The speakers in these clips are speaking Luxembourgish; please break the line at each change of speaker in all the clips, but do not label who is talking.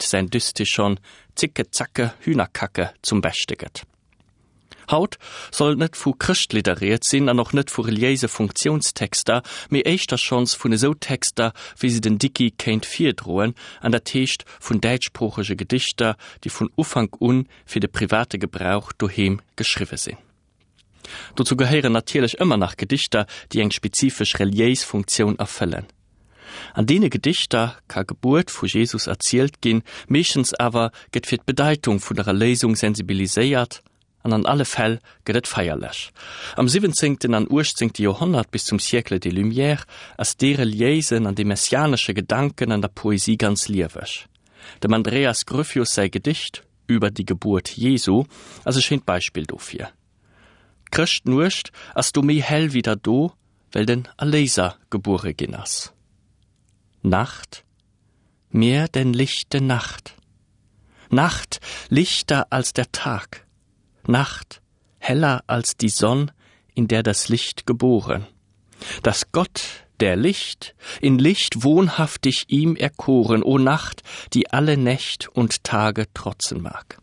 säin Dystichon Zicke Zacke Hühnerkacke zum Beschte gëtt. Haut soll et net vu Chrëschtlidder rieds sinn an och net vu reliéise Funktiounstexter, mee éischter schonns vun esou Texter, wéi se den Dickie kéint virdroen, an dat heescht vun däitschsproochege Gedichter, déi vun Ufank un fir de private Gebrauch doheem geschriwwe sinn. Dozou gehéieren natierlech ëmmer nach Gedichter, déi eng spezifesch reliéis Funktioun erfëllen. An deene Gedichter ka Gebuert vu Jesus erzielt ginn, meeschtens awer gëtt fir d'Bedeitung vun der Erléisung sensibiliséiert an an alle Fäll gëtt et feierlech. Am siwwenzéngten an uechtzéngte Joerhonnert bis zum Siècle des Lumières ass dee reliéisen an dee messianesche Gedanken an der Poesie ganz lieweg. Dem Andreas Gryphius säi Gedicht Über die Geburt Jesu ass e schéint Beispill dofir. D'Chrëschtnuecht ass do méi hell wéi der do, well den Erléiser gebuere ginn ass. Nacht, mehr denn lichte Nacht, Nacht, lichter als der Tag, Nacht, heller als die Sonn, in der das Licht geboren, dass Gott, der Licht, in Licht wohnhaftig ihm erkoren, o Nacht, die alle Nächt und Tage trotzen mag.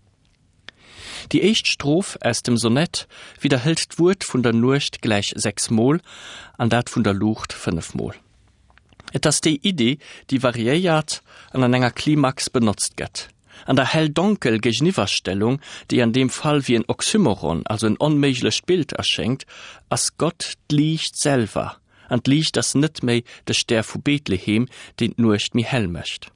Déi éischt Stroph aus dem Sonett widderhëlt d'Wuert vun der Nuecht gläich 6 Mol an dat vun der Luucht 5 Mol. Et ass déi Iddi, déi variéiert an an enger Klimax benotzt gëtt. An der Hell-Donkel-Géigeniwwerstellung, déi an deem Fall wéi en Oxymoron, also en onméiglecht Bild erschéngt, ass Gott d'Liicht selwer, an d'Liicht ass net méi de Stär vu Bethlehem, deen d'Nuecht méi hell mécht.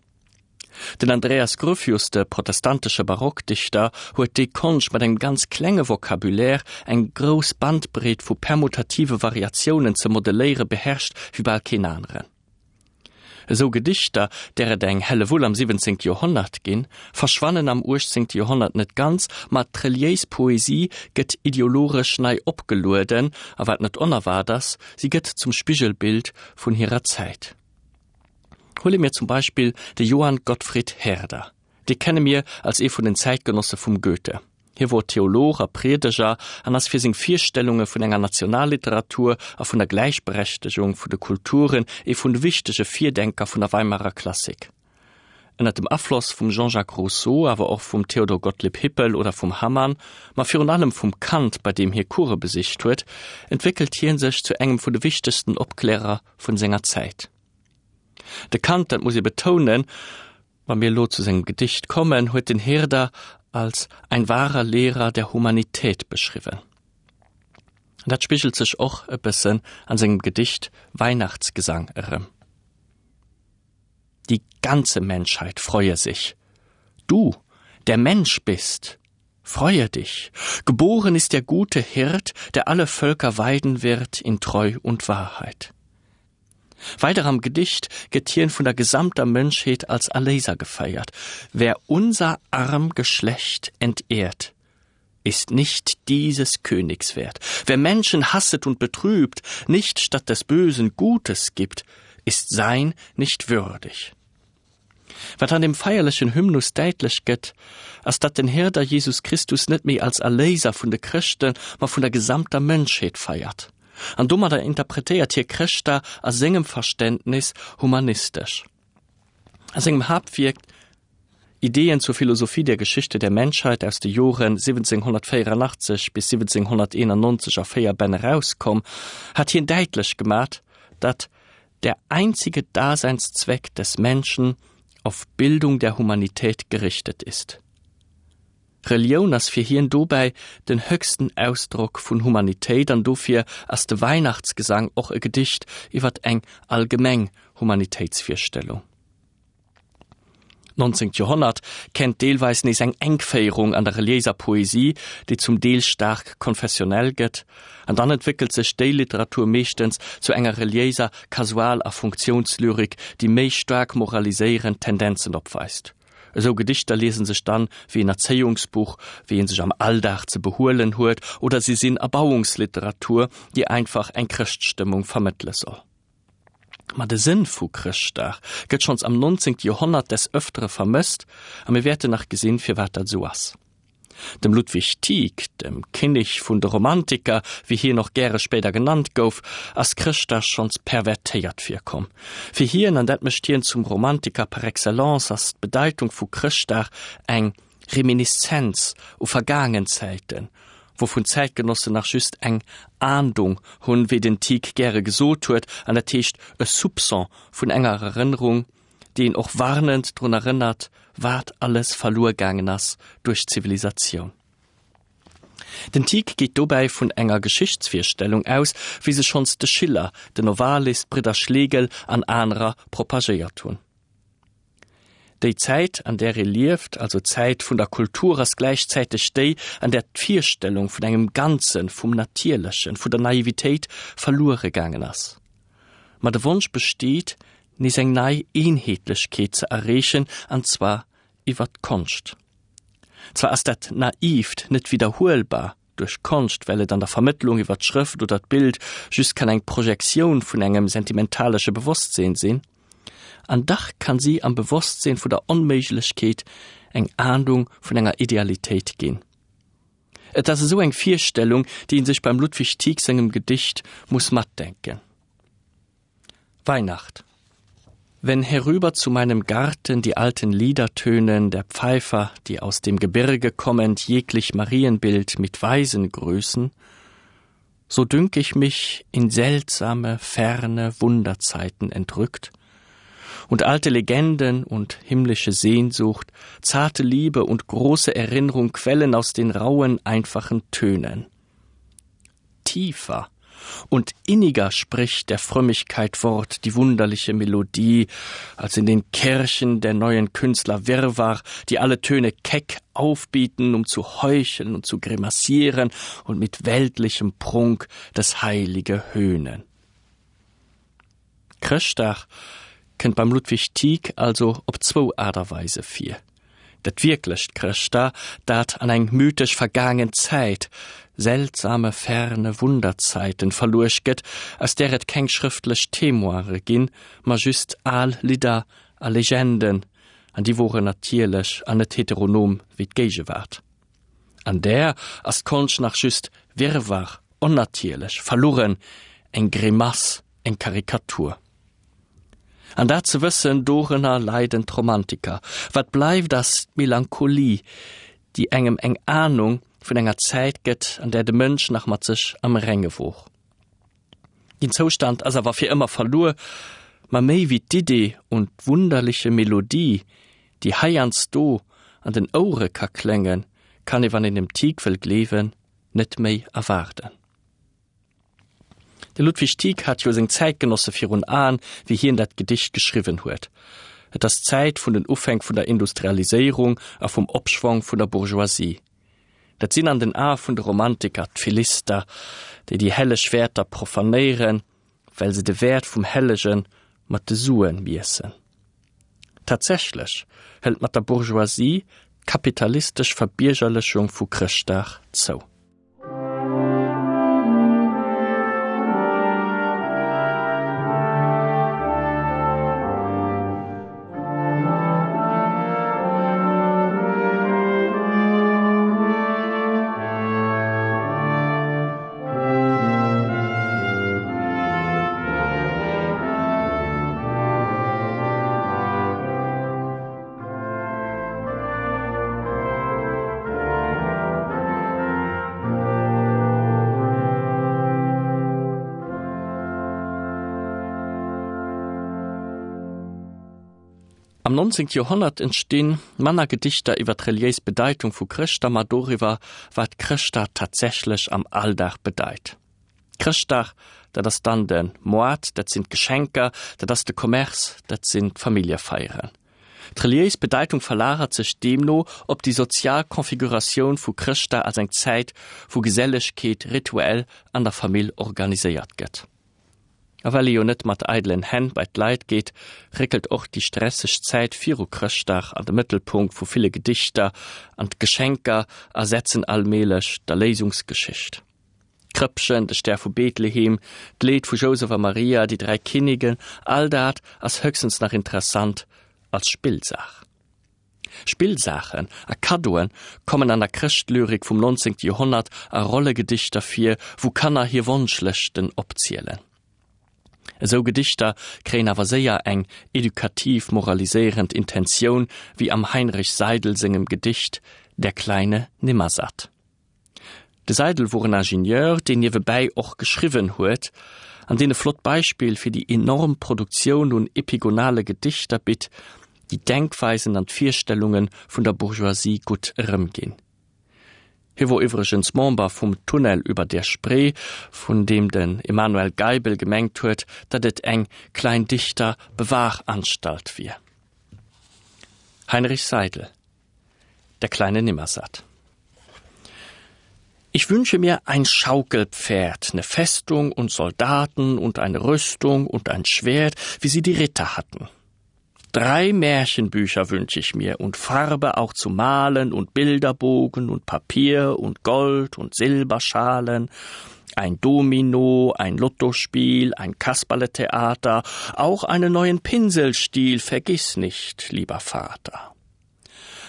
Den Andreas Gryphius, de protestantesche Barockdichter, huet déi Konscht mat engem ganz klenge Vocabulaire eng grouss Bandbreet vu permutative Variatiounen ze modelléiere beherrscht wéi bal keen aneren. Esou Gedichter, där et eng Hellewull am 17. Joerhonnert ginn, verschwannen am 18. Joerhonnert net ganz, ma d'reliéis Poesie gëtt ideologesch nei opgelueden a wat net onerwaart ass, si gëtt zum Spigelbild vun hirer Zäit. Huele mir zum Beispill de Johann Gottfried Herder. Dee kenne mir als ee vun den Zäitgenosse vum Goethe. Hie wor Theolog a Priedeger an ass fir seng Virstellunge vun enger Nationalliteratur a vun der Gläichberechtegung vun de Kulturen ee vun de wichtege Virdenker vun der Weimarer Klassik. Ënner dem Afloss vum Jean-Jacques Rousseau, awer och vum Theodor Gottlieb Hippel oder vum Hamann, ma virun allem vum Kant, bei deem hie Course besicht huet, entwéckelt hie sech zu engem vun de wichtegsten Opklärer vun senger Zäit. De Kant, dat muss ee betounen, wa mir elo zu sengem Gedicht kommen, huet den Herder als ein wahrer Lehrer der Humanität beschriwwen. An dat spigelt sech och e bëssen an sengem Gedicht Weihnachtsgesang erëm. Die ganze Menschheit freue sich. Du, der Mensch bist, freue dich. Geboren ist der gute Hirt, der alle Völker weiden wird in Treu und Wahrheit. Weider am Gedicht gëtt hien vun der gesamter Mënschheet als Erléiser gefeiert, Wer unser arm Geschlecht entehrt, ist nicht dieses Königs wert. Wer Menschen hasset und betrübt, nicht statt des Bösen Gutes gibt, ist sein nicht würdig. Wat an dem feierlechen Hymnus däitlech gëtt, ass datt den Herder Jesus Christus net méi als Erléiser vun de Chrëschten, ma vun der gesamter Mënschheet feiert. An domadder interpretéiert hie Chrëschtdag a sengem Verständnis humanistesch. A sengem Haaptwierk Ideen zur Philosophie der Geschichte der Menschheit aus de Joren 1784 bis 1791 a 4 Bänn erauskomm, hat hien däitlech gemat, datt der einzige Daseinszweck des Menschen auf Bildung der Humanität gerichtet ist. Relioun ass fir hien dobäi den höchsten Ausdrock vun Humanitéit an dofir ass de Weihnachtsgesang och e Gedicht iwwert eng allgemeng Humanitéitsvirstellung. D'nonzéngt Joerhonnert kennt deelweis nees eng Enkféierung an der reliéiser Poesie, déi zum Deel staark konfessionell gëtt, an dann entwéckelt sech déi Literatur meeschtens zu enger reliéiser Kasual a Funktiounslyrik, déi méi staark moraliséierend Tendenzen opweist. Esou Gedichter liesen sech dann wéi en Erzéiungsbuch, wéi een sech am Alldag ze behuelen huet, oder si sinn Erbauungsliteratur, déi einfach eng Chrëschtstëmmung vermëttele soll. Ma de Sënn vu Chrëschtdag gëtt schonns am 19. Joerhonnert des Ëftere vermësst a mir wäerten nach gesinn, firwat dat esou ass. Dem Ludwig Tieck, dem Kinnek vun de Romantiker, wéi hien och gäre spéider genannt gouf, ass Chrëschtdag schonns pervertéiert virkomm. Fir hien, an dat mécht hien zum Romantiker par excellence, ass d'Bedeitung vu Chrëschtdag eng Reminiszenz u vergaangen Zäiten, wouvun d'Zäitgenossen nach just eng Ahndung hunn, wéi den Tieck gäre gesot huet, an dat heescht e Soupçon vun enger Erënnerung, déi een och warnend drun erënnert, wat alles verluer gaangen ass duerch d'Zivilisatioun. Den Tieck geet dobäi vun enger Geschichtsvirstellung aus, wéi se schonns de Schiller, den Novalis, d'Bridder Schlegel an anerer propagéiert hunn. Déi Zäit, an där ee lieft, also d'Zäit vun der Kultur, ass gläichzäiteg déi, an där d'Virstellung vun engem Ganzen, vum Natierlechen, vun der Naivitéit verluere gaangen ass. Ma de Wonsch besteet, nees eng nei Eenheetlechkeet ze erreechen, an zwar iwwer d'Konscht. Zwar ass dat Naiivt net widderhuelbar duerch Konscht, well et an der Vermëttlung iwwer d'Schrëft oder d'Bild just kann eng Projektioun vun engem sentimentalesche Bewosstseen sinn, an dach kann si am Bewosstseen vun der Onméiglechkeet eng Ahnung vun enger Idealitéit ginn. Et ass esou eng Virstellung, déi een sech beim Ludwig Tieck sengem Gedicht muss matdenken. Weihnacht. Wenn herüber zu meinem Garten die alten Lieder tönen, der Pfeifer, die aus dem Gebirge kommend jeglich Marienbild mit Weisen grüßen, so dünk ich mich in seltsame, ferne Wunderzeiten entrückt, und alte Legenden und himmlische Sehnsucht, zarte Liebe und große Erinnerung quellen aus den rauen, einfachen Tönen. Tiefer und inniger spricht der Frömmigkeit Wort die wunderliche Melodie, als in den Kirchen der neuen Künstler Wirrwarr, die alle Töne keck aufbieten, um zu heucheln und zu grimassieren und mit weltlichem Prunk das Heilige höhnen. Chrëschtdag kënnt beim Ludwig Tieck also op zwou Aart a Weise vir. Dat wierklecht Chrëschtdag, dat an eng mythesch vergaangen Zäit, seltsame ferne Wunderzeiten, verluecht gëtt, aus där et keng schrëftlech Témoine ginn, ma just al Lidder a Legenden, an déi woren natierlech an net heteronom wéi d'Géigewaart. An där ass d'Konscht nach just Wirrwarr, onnatierlech, verlueren, eng Grimass, eng Karikatur. An dat ze wëssen, dorënner leiden d'Romantiker. Wat bleift ass d'Melancholie, déi engem eng Ahnung vun enger Zäit gëtt, an där de Mënsch nach mat sech am Renge wor. Deen Zoustand ass awer fir ëmmer verluer, ma méi wéi d'Idee un d'wunderliche Melodie, déi heiansdo an den Ouere ka kléngen, kann ee, wann een dem Tieck wëll gleewen, net méi erwaarden. De Ludwig Tieck hat jo seng Zäitgenosse virun Aen, wéi hien dat Gedicht geschriwwen huet. Et ass d'Zäit vun den Ufänk vun der Industrialiséierung a vum Opschwong vun der Bourgeoisie. Dat sinn an den Ae vun de Romantiker d'Philister, déi déi helleg Wäerter profanéieren, well se de Wäert vum Hellege mat de Sue miessen. Tatsächlech hëlt mat der Bourgeoisie d'kapitalistesch Verbiergerlechung vu Chrëschtdag zou. Am 19. Joerhonnert entstinn manner Gedichter iwwer d'reliéis Bedeitung vu Chrëschtdag, ma doriwwer, wat Chrëschtdag tatsächlech am Alldag bedeit. Chrëschtdag, dat ass dann de Moart, dat sinn d'Geschenker, dat ass de Commerce, dat sinn d'Familljefeieren. D'reliéis Bedeitung verlagert sech deemno op déi sozial Configuratioun vu Chrëschtdag als eng Zäit, wou Gesellegkeet rituell an der Famill organiséiert gëtt. A well ee jo net mat eidelen Hänn bei d'Leit geet, réckelt och déi stresseg Zäit viru Chrëschtdag an de Mëttelpunkt vu ville Gedichter an d'Geschenker ersetzen allmählech d'Erléisungsgeschicht. D'Krëppchen, de Stär vu Bethlehem, d'Leed vu Jousef a Maria, déi 3 Kinnigen, all dat ass höchstens nach interessant als Spillsaach. Spillsaachen a Kaddoe kommen an der Chrëschtlyrik vum 19. Joerhonnert a Rollegedichter vir, wou Kanner hir Wonschlëschten opzielen. Esou Gedichter kréien awer séier eng edukativ-moraliséierend Intentioun, wéi am Heinrich Seidel sengem Gedicht Der kleine Nimmersatt. De Seidel wor en Ingenieur, deen niewebäi och geschriwwen huet, an deen e flott Beispill fir déi enorm Produktioun un epigonale Gedichter bitt, déi d'Denkweisen an d'Virstellunge vun der Bourgeoisie gutt erëmginn. Hie wor iwwregens Member vum Tunnel über der Spree, vun deem den Emanuel Geibel gemengt huet, datt et eng Kleindichter-Bewahranstalt wier. Heinrich Seidel. Der kleine Nimmersatt. Ich wünsche mir ein Schaukelpferd, ne Festung und Soldaten und eine Rüstung und ein Schwert, wie sie die Ritter hatten. Drei Märchenbücher wünsche ich mir und Farbe auch zu malen und Bilderbogen und Papier und Gold und Silberschalen, ein Domino, ein Lottospiel, ein Kasperletheater, auch einen neuen Pinselstiel vergiss nicht, lieber Vater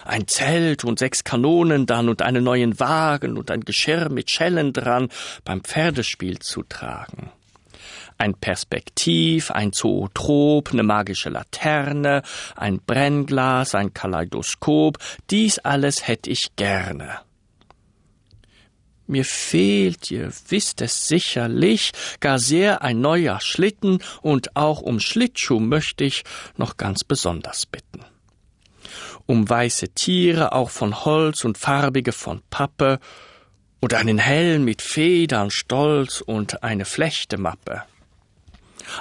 ein Zelt und sechs Kanonen dann und einen neuen Wagen und ein Geschirr mit Schellen dran beim Pferdespiel zu tragen. Ein Perspektiv, ein Zootrop, eine magische Laterne, ein Brennglas, ein Kaleidoskop, dies alles hätt ich gerne. Mir fehlt, ihr wisst es sicherlich, gar sehr ein neuer Schlitten und auch um Schlittschuh möchte ich noch ganz besonders bitten um weiße Tiere auch von Holz und farbige von Pappe und einen Helm mit Federn stolz und eine Flechtemappe.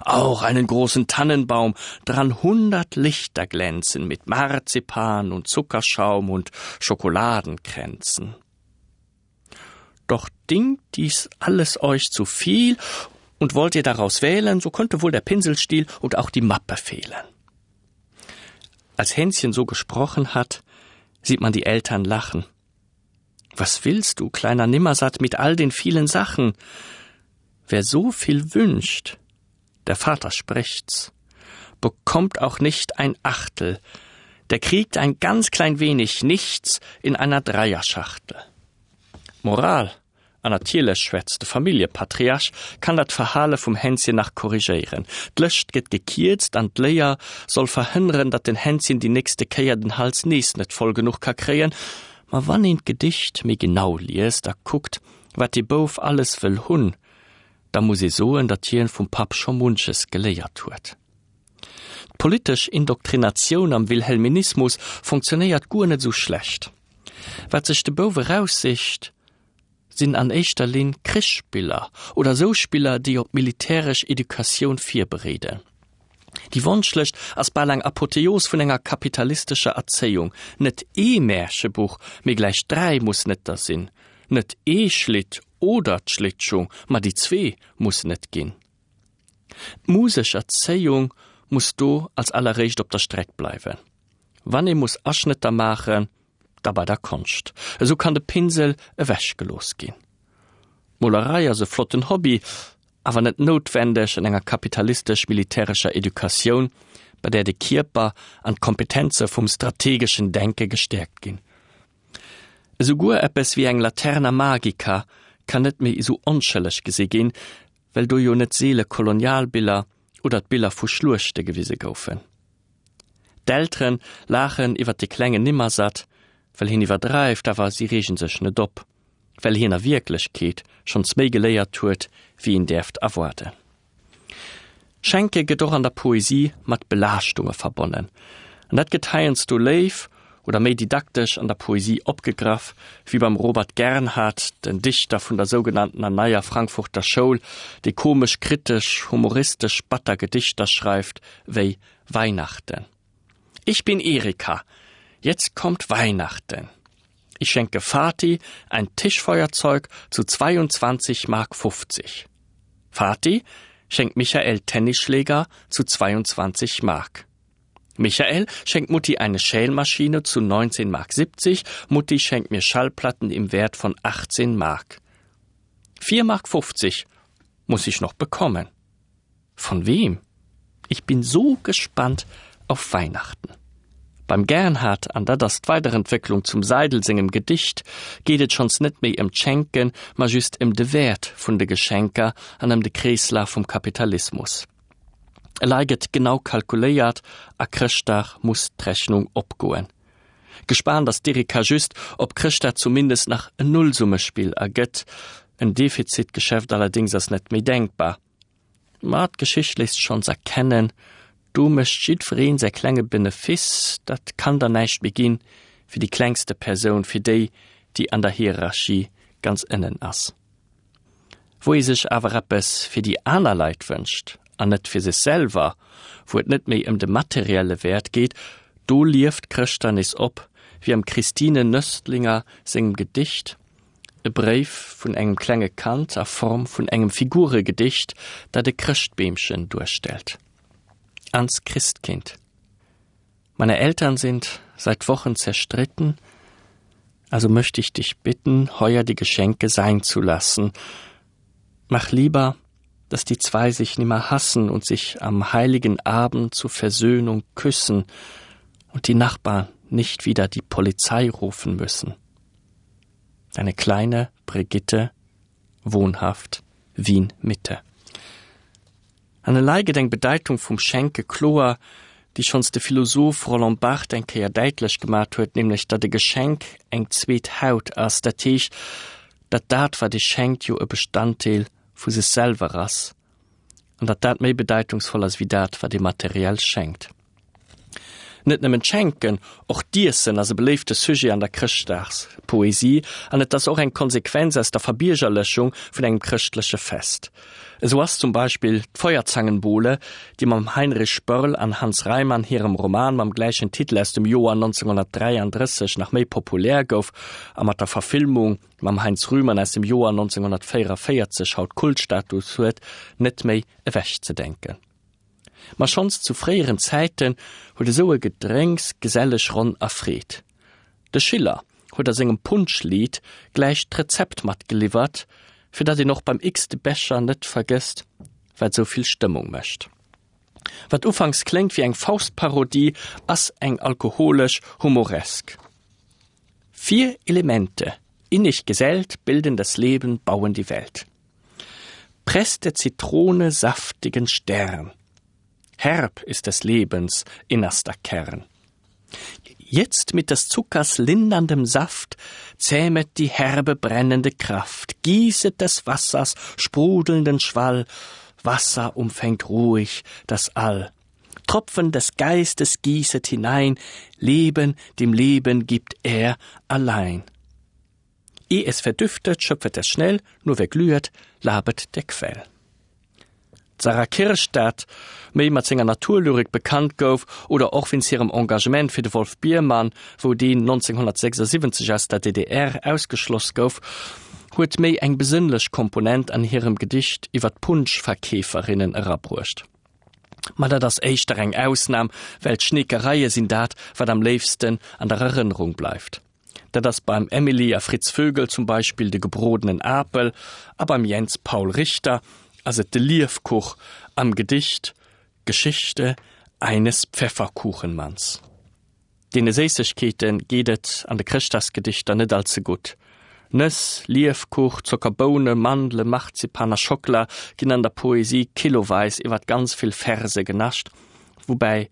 Auch einen großen Tannenbaum, dran hundert Lichter glänzen mit Marzipan und Zuckerschaum und Schokoladenkränzen. Doch dingt dies alles euch zu viel und wollt ihr daraus wählen, so könnte wohl der Pinselstiel und auch die Mappe fehlen. Als Hänschen so gesprochen hat, sieht man die Eltern lachen. Was willst du, kleiner Nimmersatt, mit all den vielen Sachen? Wer so viel wünscht, der Vater spricht's, bekommt auch nicht ein Achtel, der kriegt ein ganz klein wenig nichts in einer Dreierschachtel. Moral An natierlech schwätzt de Familljepatriarch, kann dat Verhale vum Hänschen nach korrigéieren. D'Lëscht gëtt gekierzt an d'Léier soll verhënneren, datt den Hänschen déi nächste Kéier den Hals nees net voll genuch ka kréien. Ma wann een d'Gedicht méi genau liest a kuckt, wat dee Bouf alles wëll hunn, da muss ee soen, datt hien vum Papp scho munches geléiert huet. D'politesch Indoktrinatioun am Wilhelminismus fonctionnéiert guer net esou schlecht. Wat sech de Bouf eraussicht, sinn an éischter Linn Krichsspiller oder esou Spiller, déi op militäresch Educatioun virbereeden. Déi Wonschlëscht ass bal eng Apotheos vun enger kapitalistescher Erzéiung, net ee Märchebuch, mee gläich 3 mussen et der sinn, net ee Schlitt oder d'Schlittschung, ma déi zwee mussen et ginn. D'musesch Erzéiung muss do als alleréischt op der Streck bleiwen. Wann ee muss Aschnëtter maachen, da bei der Konscht. Esou kann de Pinsel ewech gelooss ginn. D'Molerei ass e flotten Hobby, awer net noutwendeg an enger kapitalistesch-militärescher Educatioun, bei där de Kierper an d'Kompetenze vum strategeschen Denke gestäerkt ginn. Esouguer eppes wéi eng Laterna Magica kann net méi esou onschëlleg gesi ginn, well do jo net seele Kolonialbiller oder d'Biller vu Schluechte gewise goufen. D'Elteren laachen iwwer de klengen Nimmersatt, well hien iwwerdreift, awer si reegen sech net op, well hien a Wierklechkeet schonns méi geléiert huet, wéi een däerft erwaarden. Schenke gëtt och an der Poesie mat Belaaschtunge verbonnen, an dat gëtt heiansdo léif oder méi didaktesch an der Poesie opgegraff, wéi beim Robert Gernhardt, den Dichter vun der sougenanntener Neier Frankfurter Schoul, dee komesch, kritesch, humoristesch, batter Gedichter schreift, wéi Weihnachten. Ich bin Erika. Jetzt kommt Weihnachten. Ich schenke Vati ein Tischfeuerzeug zu 22 Mark 50. Vati schenkt Michael Tennisschläger zu 22 Mark. Michael schenkt Mutti eine Schälmaschine zu 19 Mark 70, Mutti schenkt mir Schallplatten im Wert von 18 Mark. 4 Mark 50 muss ich noch bekommen. Von wem? Ich bin so gespannt auf Weihnachten. Beim Gernhardt, an dat ass d'Weiderentwécklung zum Seidel sengem Gedicht, geet et schonns net méi ëm d'Schenken, ma just ëm de Wäert vun de Geschenker an ëm de Kreeslaf vum Kapitalismus. Elei gëtt genau kalkuléiert a Chrëschtdag muss d'Rechnung opgoen. Gespaant ass d'Erika just, ob Chrëschtdag zumindest nach en Nullsummespill ergëtt. En Defizitgeschäft allerdéngs ass net méi denkbar. Ma d'Geschicht léisst schonns erkennen, do mécht jiddwereen säi klenge Benefiss, dat kann dann näischt méi ginn fir déi klengste Persoun, fir déi, déi an der Hierarchie ganz ënnen ass. Wou ee sech awer eppes fir déi aner Leit wënscht an net fir sech selwer, wou et net méi ëm de materielle Wäert geet, do lieft Chrëschtdag nees op, wéi am Christine Nöstlinger sengem Gedicht. E Bréif vun engem klenge Kand a Form vun engem Figuregedicht, dat e Chrëschtbeemchen duerstellt. Ans Christkind. Meine Eltern sind seit Wochen zerstritten, also möchte ich dich bitten, heuer die Geschenke sein zu lassen. Mach lieber, dass die zwei sich nimmer hassen und sich am heiligen Abend zur Versöhnung küssen und die Nachbarn nicht wieder die Polizei rufen müssen. Deine kleine Brigitte, wohnhaft Wien Mitte. An elei gëtt eng Bedeitung vum Schenke kloer, déi schonns de Philosoph Roland Barthes eng Kéier däitlech gemat huet, nämlech datt e Geschenk eng zweet Haut ass, dat heescht, datt dat wat ee schenkt jo e Bestanddeel vu sech selwer ass an datt dat méi bedeitungsvoll ass wéi dat wat ee materiell schenkt. Net nëmmen d'Schenken, och d'Iessen ass e beléifte Sujet an der Chrëschtdagspoesie an et ass och eng Konsequenz aus der Verbiergerlechung vun engem chrëschtleche Fest. Esou ass zum Beispill d'Feuerzangenbowle, déi mam Heinrich Börl an Hans Reimann hirem Roman mam gläichen Titel aus dem Joer 1933 nach méi populär gouf a mat der Verfilmung mam Heinz Rühmann aus dem Joer 1944 haut Kultstatus huet, net méi ewechzedenken. Ma schonns zu fréieren Zäiten huet esou e Gedrénks geselleg Ronn erfreet. De Schiller huet a sengem Punschlied gläich d'Rezept matgeliwwert, fir datt een och beim x-te Becher net vergësst, wat esou vill Stëmmung mécht. Wat ufanks kléngt wéi eng Faust-Parodie, ass eng alkoholesch Humoresk. Vier Elemente, innig gesellt, bilden das Leben, bauen die Welt. Presst der Zitrone saftigen Stern. Herb ist des Lebens innerster Kern. Jetzt mit des Zuckers linderndem Saft zähmet die herbe brennende Kraft, gießet des Wassers sprudelnden Schwall, Wasser umfängt ruhig das All. Tropfen des Geistes gießet hinein, Leben dem Leben gibt er allein. Eh es verdüftet, schöpfet es schnell, nur wer glühet, labet der Quell. D'Sarah Kirsch, dat méi mat senger Naturlyrik bekannt gouf, oder och wéinst hirem Engagement fir de Wolf Biermann, wou deen 1976 aus der DDR ausgeschloss gouf, huet méi eng besënnlech Komponent an hirem Gedicht iwwer d'Punschverkeeferinnen erabruecht. Ma dat ass éischter eng Ausnam, well d'Schneekereie sinn dat, wat am léifsten an der Erënnerung bleift. Dat ass beim Emily a Fritz Vögel zum Beispill de gebrodenen Apel a beim Jens Paul Richter ass et de Liefkuch am Gedicht Geschichte eines Pfefferkuchenmanns. Deene Séissegkeete geet et an de Chrëschtdagsgedichter net all ze gutt. Nëss, Liefkuch, Zockerboune, Mandele, Marzipan a Schockela ginn an der Poesie kiloweis iwwer ganz vill Verse genascht, woubäi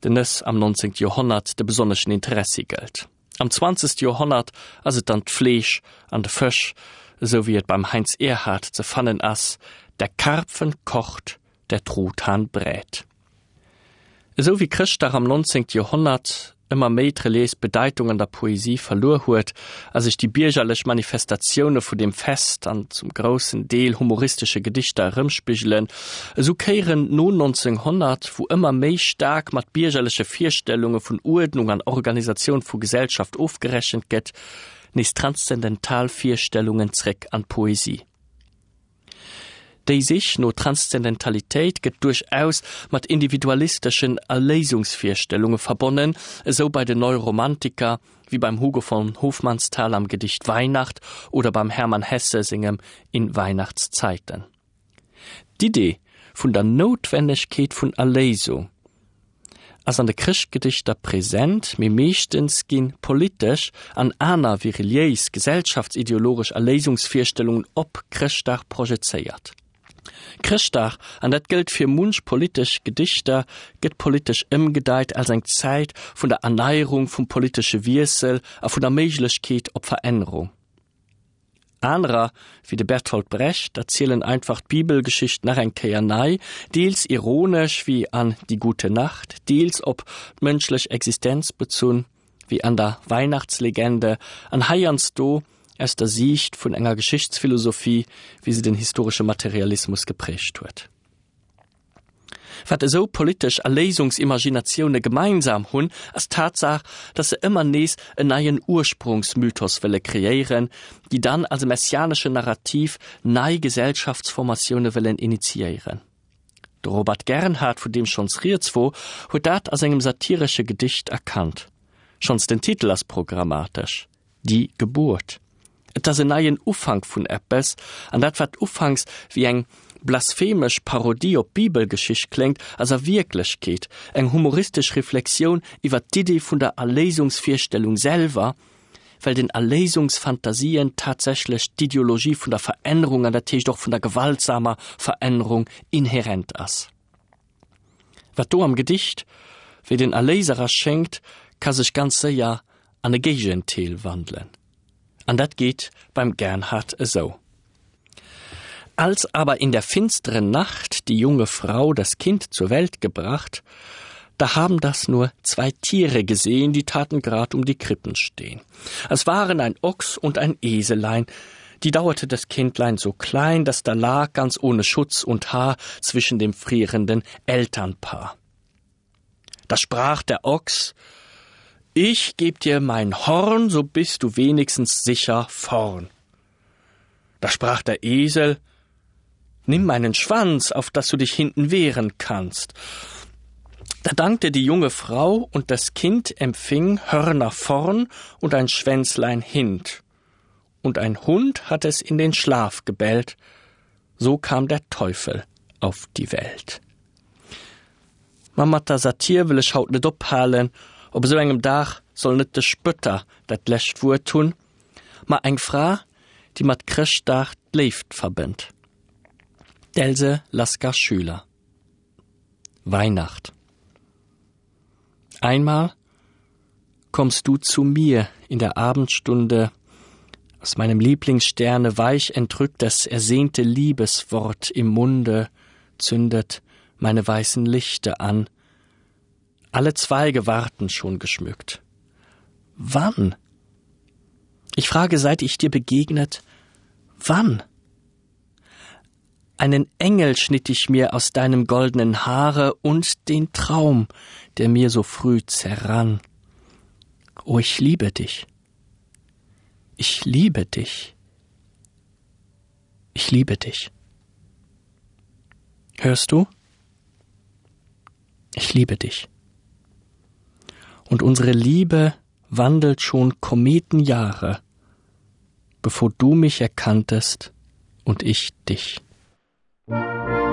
den Nëss am 19. Joerhonnert de besonneschen Interessi gëllt. Am 20. Joerhonnert ass et dann d'Fleesch an de Fësch, esou wéi et beim Heinz Erhardt ze fannen ass, Der Karpfen kocht, der Truthahn brät. Esou wéi Chrëschtdag am 19. Joerhonnert ëmmer méi d'reliéis Bedeitung an der Poesie verluer huet a sech déi biergerlech Manifestatioune vu deem Fest an zum groussen Deel humoristesche Gedichter erëmspigelen, esou kéieren no 1900, wou ëmmer méi staark mat biergerleche Virstellunge vun Uerdnung an Organisatioun vu Gesellschaft ofgerechent gëtt, nees transzendental Virstellungen zréck an d'Poesie. Déi Sich no Transzendentalitéit gëtt duerchaus mat individualisteschen Erléisungsvirstellunge verbonnen, esou bei den Neuromantiker wéi beim Hugo von Hofmannsthal am Gedicht Weihnacht oder beim Hermann Hesse sengem In Weihnachtszeiten. D'Idee vun der Noutwennegkeet vun Erléisung. ass an de Chrëschtgedichter present, mee meeschtens gi politesch an aner wéi reliéis, gesellschaftsideologesch Erléisungsvirstellungen op Chrëschtdag projezéiert. Chrëschtdag, an dat gëllt fir munch politesch Gedichter, gëtt politesch ëmgedeit als eng Zäit vun der Erneierung, vum politesche Wiessel a vun der Méiglechkeet op Verännerung. Anerer, wéi de Bertolt Brecht, erzielen einfach d'Bibelgeschicht nach eng Kéier nei, deels ironesch, wéi an Die gute Nacht, deels op d'mënschlech Existenz bezunn, wéi an der Weihnachtslegende, an heiansdo aus der Siicht vun enger Geschichtsphilosophie, wéi se den historesche Materialismus geprägt huet. Wat esou politesch Erléisungsimaginatioune gemeinsam hunn, ass d'Tatsaach, datt se ëmmer nees en neien Ursprongsmythos wëlle kreéieren, déi dann als e messianeschen Narrativ nei Gesellschaftsformatioune wëllen initiéieren. De Robert Gernhardt, vun deem schonns rieds wor, huet dat a sengem satiresche Gedicht erkannt. Schonns den Titel ass programmatesch, Die Geburt. Et ass en neien Ufank vun eppes, an dat wat ufanks wéi eng blasphemesch Parodie op d'Bibelgeschicht kléngt, ass a Wierklechkeet eng humoristesch Reflexioun iwwer d'Idee vun der Erléisungsvirstellung selwer, well den Erléisungsfantasien tatsächlech d'Ideologie vun der Verännerung, an dat heescht och vun der gewaltsamer Verännerung, inherent ass. Wat do am Gedicht wéi den Erléiser erschéngt, ka sech ganz séier an e Géigendeel wandelen. An dat geet beim Gernhardt esou. Als aber in der finsteren Nacht die junge Frau das Kind zur Welt gebracht, da haben das nur zwei Tiere gesehen, die taten grad um die Krippen stehen. Es waren ein Ochs und ein Eselein, die dauerte das Kindlein so klein, dass da lag ganz ohne Schutz und Haar zwischen dem frierenden Elternpaar. Da sprach der Ochs: Ich geb dir mein Horn, so bist du wenigstens sicher vorn. Da sprach der Esel: Nimm meinen Schwanz, auf dass du dich hinten wehren kannst. Da dankte die junge Frau und das Kind empfing Hörner vorn und ein Schwänzlein hint. Und ein Hund hat es in den Schlaf gebellt. So kam der Teufel auf die Welt. Ma mat der Satir wëll ech haut net ophalen, op esou engem Dag soll net de Spötter dat lescht Wuert hunn, ma eng Fra, déi mat Chrëschtdag d'Léift verbënnt, d'Else Lasker-Schüler. Weihnacht. Einmal kommst du zu mir in der Abendstunde, aus meinem Lieblingssterne weich entrückt das ersehnte Liebeswort im Munde, zündet meine weißen Lichter an. Alle Zweige warten schon geschmückt. Wann? Ich frage, seit ich dir begegnet, wann? Einen Engel schnitt ich mir aus deinem goldenen Haare und den Traum, der mir so früh zerrann. O ich liebe dich. Ich liebe dich. Ich liebe dich. Hörst du? Ich liebe dich. Und unsere Liebe wandelt schon Kometenjahre, bevor du mich erkanntest und ich dich.
Musik.